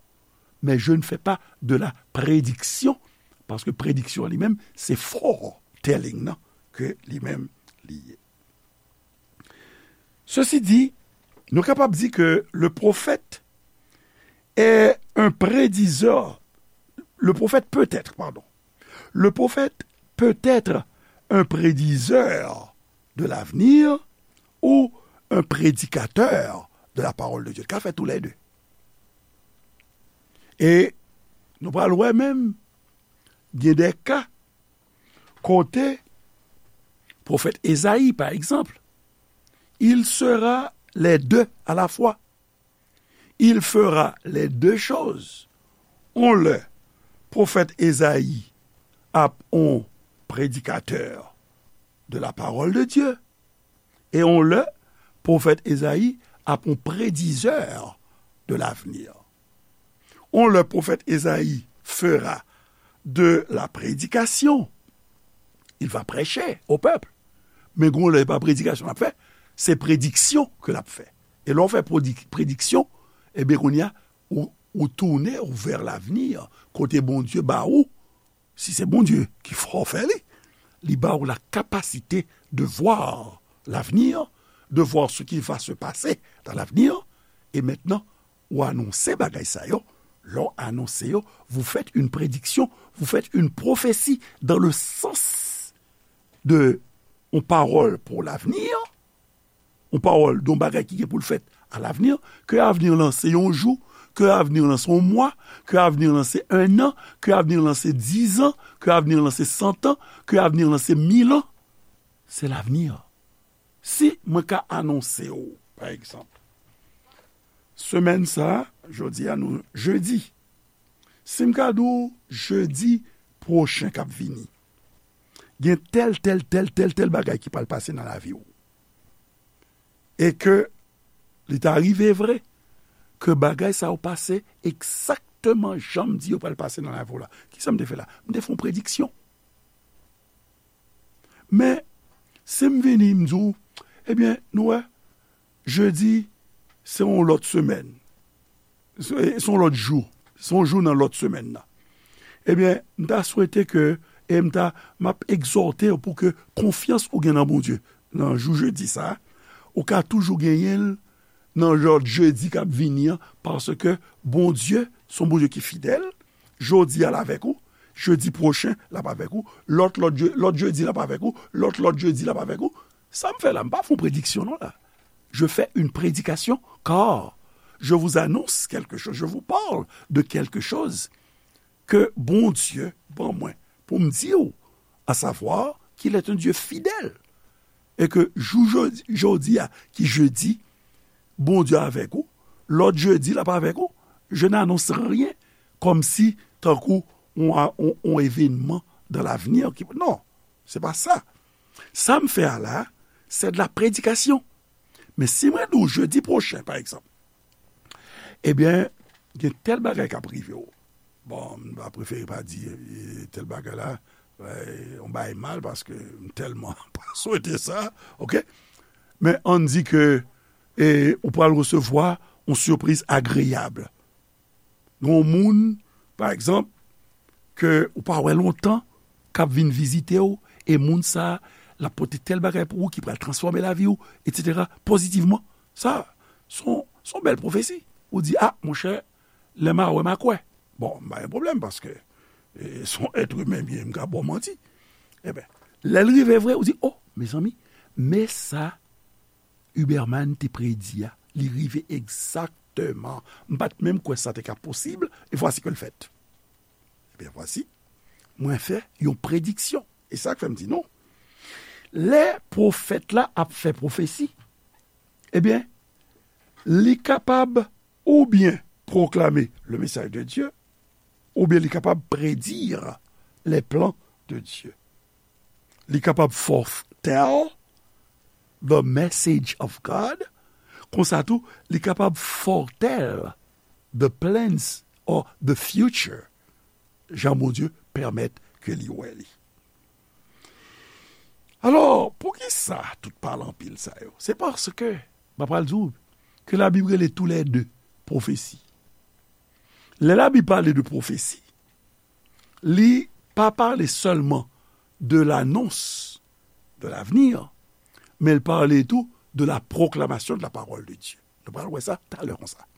mais je ne fais pas de la prédiction, parce que prédiction li menm, se foretelling nan ke li menm li ye. Ceci dit, nou kapab di ke le prophète est un prédiseur, le prophète peut être, pardon, le prophète peut être un prédiseur de l'avenir ou un prédicateur de la parole de Dieu. Ka fè tou lè de. E nou pral wè menm, gen de ka kote pwofèt Ezayi, pa egzanp, il sera les deux à la fois. Il fera les deux choses. On lè, pwofèt Ezayi ap on prédicateur de la parole de Dieu. E on lè, pwofèt Ezayi ap on prédiseur de l'avenir. On lè, pwofèt Ezayi fera de la prédication. Il va prêcher au peuple. Men gon lè, e pa predikasyon l ap fè, se prediksyon ke l ap fè. E lè w fè predi-, prediksyon, ebyen, kounye a, ou, ou tounen ou vers l'avenir, kote Bondye ba ou, si se Bondye ki fè w fè li, li ba ou la capacité de voir l'avenir, de voir ce qui va se passer dans l'avenir, e mentnan, ou anonse bagay sa yo. Lè w anonse yo, vous faites une prédiction, vous faites une prophétie dans le sens de yon pawòl pou l'avenir, yon pawòl de yon bagay ki gen pou l fèt à l'avenir, ke avenir lan se yon jou, ke avenir lan se yon mwa, ke avenir lan se un an, ke avenir lan se dizan, ke avenir lan se santan, ke avenir lan se mil an. Se l'avenir. Si mwen ka anonse w, pa egzanp, semèn sa a, jodi a nou jedi. Si m ka di w jedi pwochen k ap vini, gen tèl, tèl, tèl, tèl, tèl bagay ki pral pase nan lavi w. E ke li ta rive vre ke bagay sa yo pase egzakteman jan m di yo pral pase nan lavi w la. Kisa m te fè la? M te fè yon prediksyon. Men, si m vini, m di w, ebyen, nou wè, jedi, se yon lòt semèn. Se, se yon lòt jou. Se yon jou nan lòt semèn nan. Ebyen, m ta swete ke, e m ta, m ap egzòte w pou ke konfyans ou gen nan Bondye, nan jou jedi sa a, ou ka toujou genyen l nan lòt jedi k ap vini an, paske Bondye se yon Bondye ki fidèl, jodi a l avèk ou, jedi pwochen l ap avèk ou, lòt, lòt je-, lòt jedi l ap avèk ou, lòt, lòt jedi l ap avèk ou. Sa m fè la, m pa fè yon prediksyon non la. Je fais une prédication, car je vous annonce quelque chose, je vous parle de quelque chose que Bondye ban mwen pou m di w, à savoir qu'il est un Dieu fidèle, e ke jou jodi, jodi a, ki jedi, Bondye avèk ou, lòt jedi l ap avèk ou. Je n'annonce rien kòmsi tankou on, on, on événement dans l'avenir ki, non, se pa sa. Sa m fè a la, c'est de la prédication. Men si mwen di w jedi pwochen, pa egzanp, ebyen, gen tèl bagay k ap rive w. Bon, m va prefere pa di e, tèl bagay la, e, yon bagay mal, paske m tèlman pa swete sa, oke? Men ann di ke e, ou pral resevwa yon sipriz agreyab. Gen yon moun, pa egzanp, ke ou pa wè lontan, k ap vin vizite w, e moun sa a, l ap pote tèl bagay pou ou ki pral transfòme lavi w, etsetera, pozitivman. Sa, se yon, se yon bèl pwofesi. Ou di, a, monchè, lè m a wè, m a kwè. Bon, m pa gen pwoblèm, paske e, se yon èt imen m ye, m ka ba w manti. Ebyen, lè l rive vre, ou di, o, mezanmi, men sa Huberman te predi a, li rive egzakteman. M pa t menm kwè sa te ka posib, e vwasi ke l fèt. Ebyen, vwasi, mwen fè yon prediksyon. E sa k fè m di nou. Lè pwofèt la ap fè pwofesi, ebyen, li kapab oubyen pwoklame le message de Dieu, oubyen li kapab predi les plans de Dieu. Li kapab foretell the message of God, konsa tou, li kapab foretell the plans or the future, jan Bondye pèmèt ke li wè li. Alò, poukisa tout pale anpil sa yo? Se paske, m ap pral di w, ke Labib rele toulède pwofesi. Lè Labib pale de pwofesi, li pa pale sèlman de l'annonce de l'avenir, men l pale tou de la proclamation de la parole de Dieu. Nou pral wè sa talè konsa.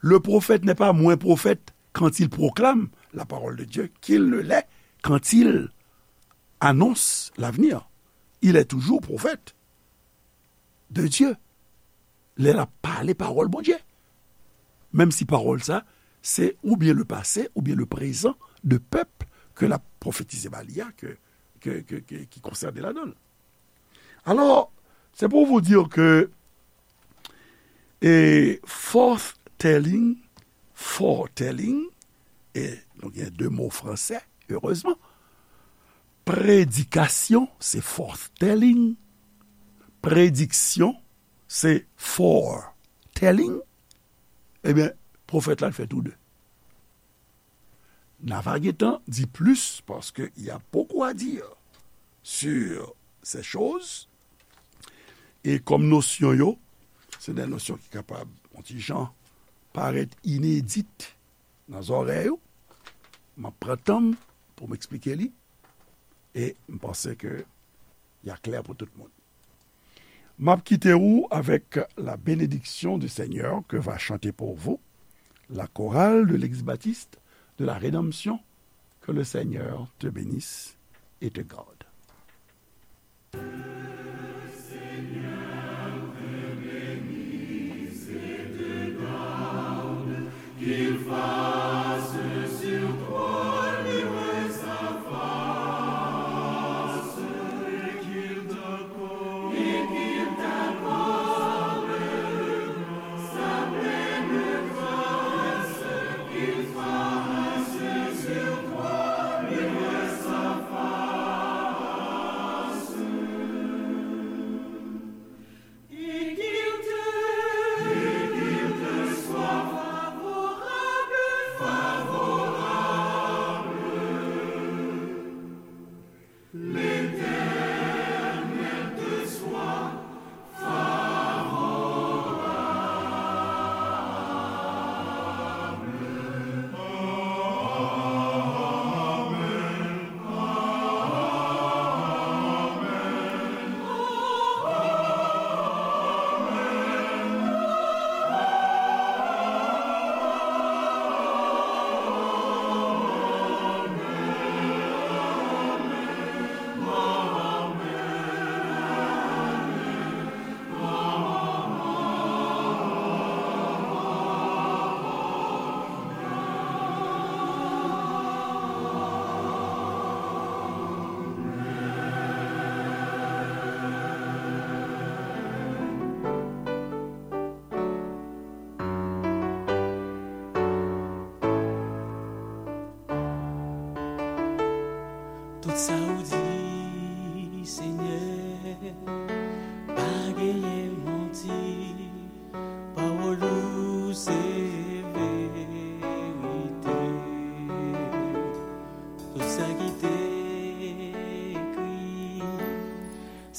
Le prophète n'est pas moins prophète quand il proclame la parole de Dieu qu'il ne l'est quand il annonce l'avenir. Il est toujours prophète de Dieu. Lè l ap pale pawòl Bondye. Menm si pawòl sa, se oubyen le pase, oubyen le prezan de pèp ke l ap pwofetize ba li a, ke, ke, ke, ke, ki konsène ladan l. Alò, se pou vous dire ke e foretelling, foretelling, e nou gen de mo fransè, erezman. Predikasyon, se foretelling. Prediksyon, se foretelling. Ebyen, pwofèt la, l fè tou de. N a va gentan di plis, paske y a beaucoup à dire sur ces choses. E kòm nosyon yo, se de nosyon ki kapab, yon ti jan, parèt inedit nan zòrèy ou, m ap pran tan m pou m eksplike li, e m panse ke y a klè pou tout moun. M ap kite ou avec la bénédiction du Seigneur que va chanter pour vous la chorale de l'Église baptiste de la Rédemption. Que le Seigneur te bénisse et te garde.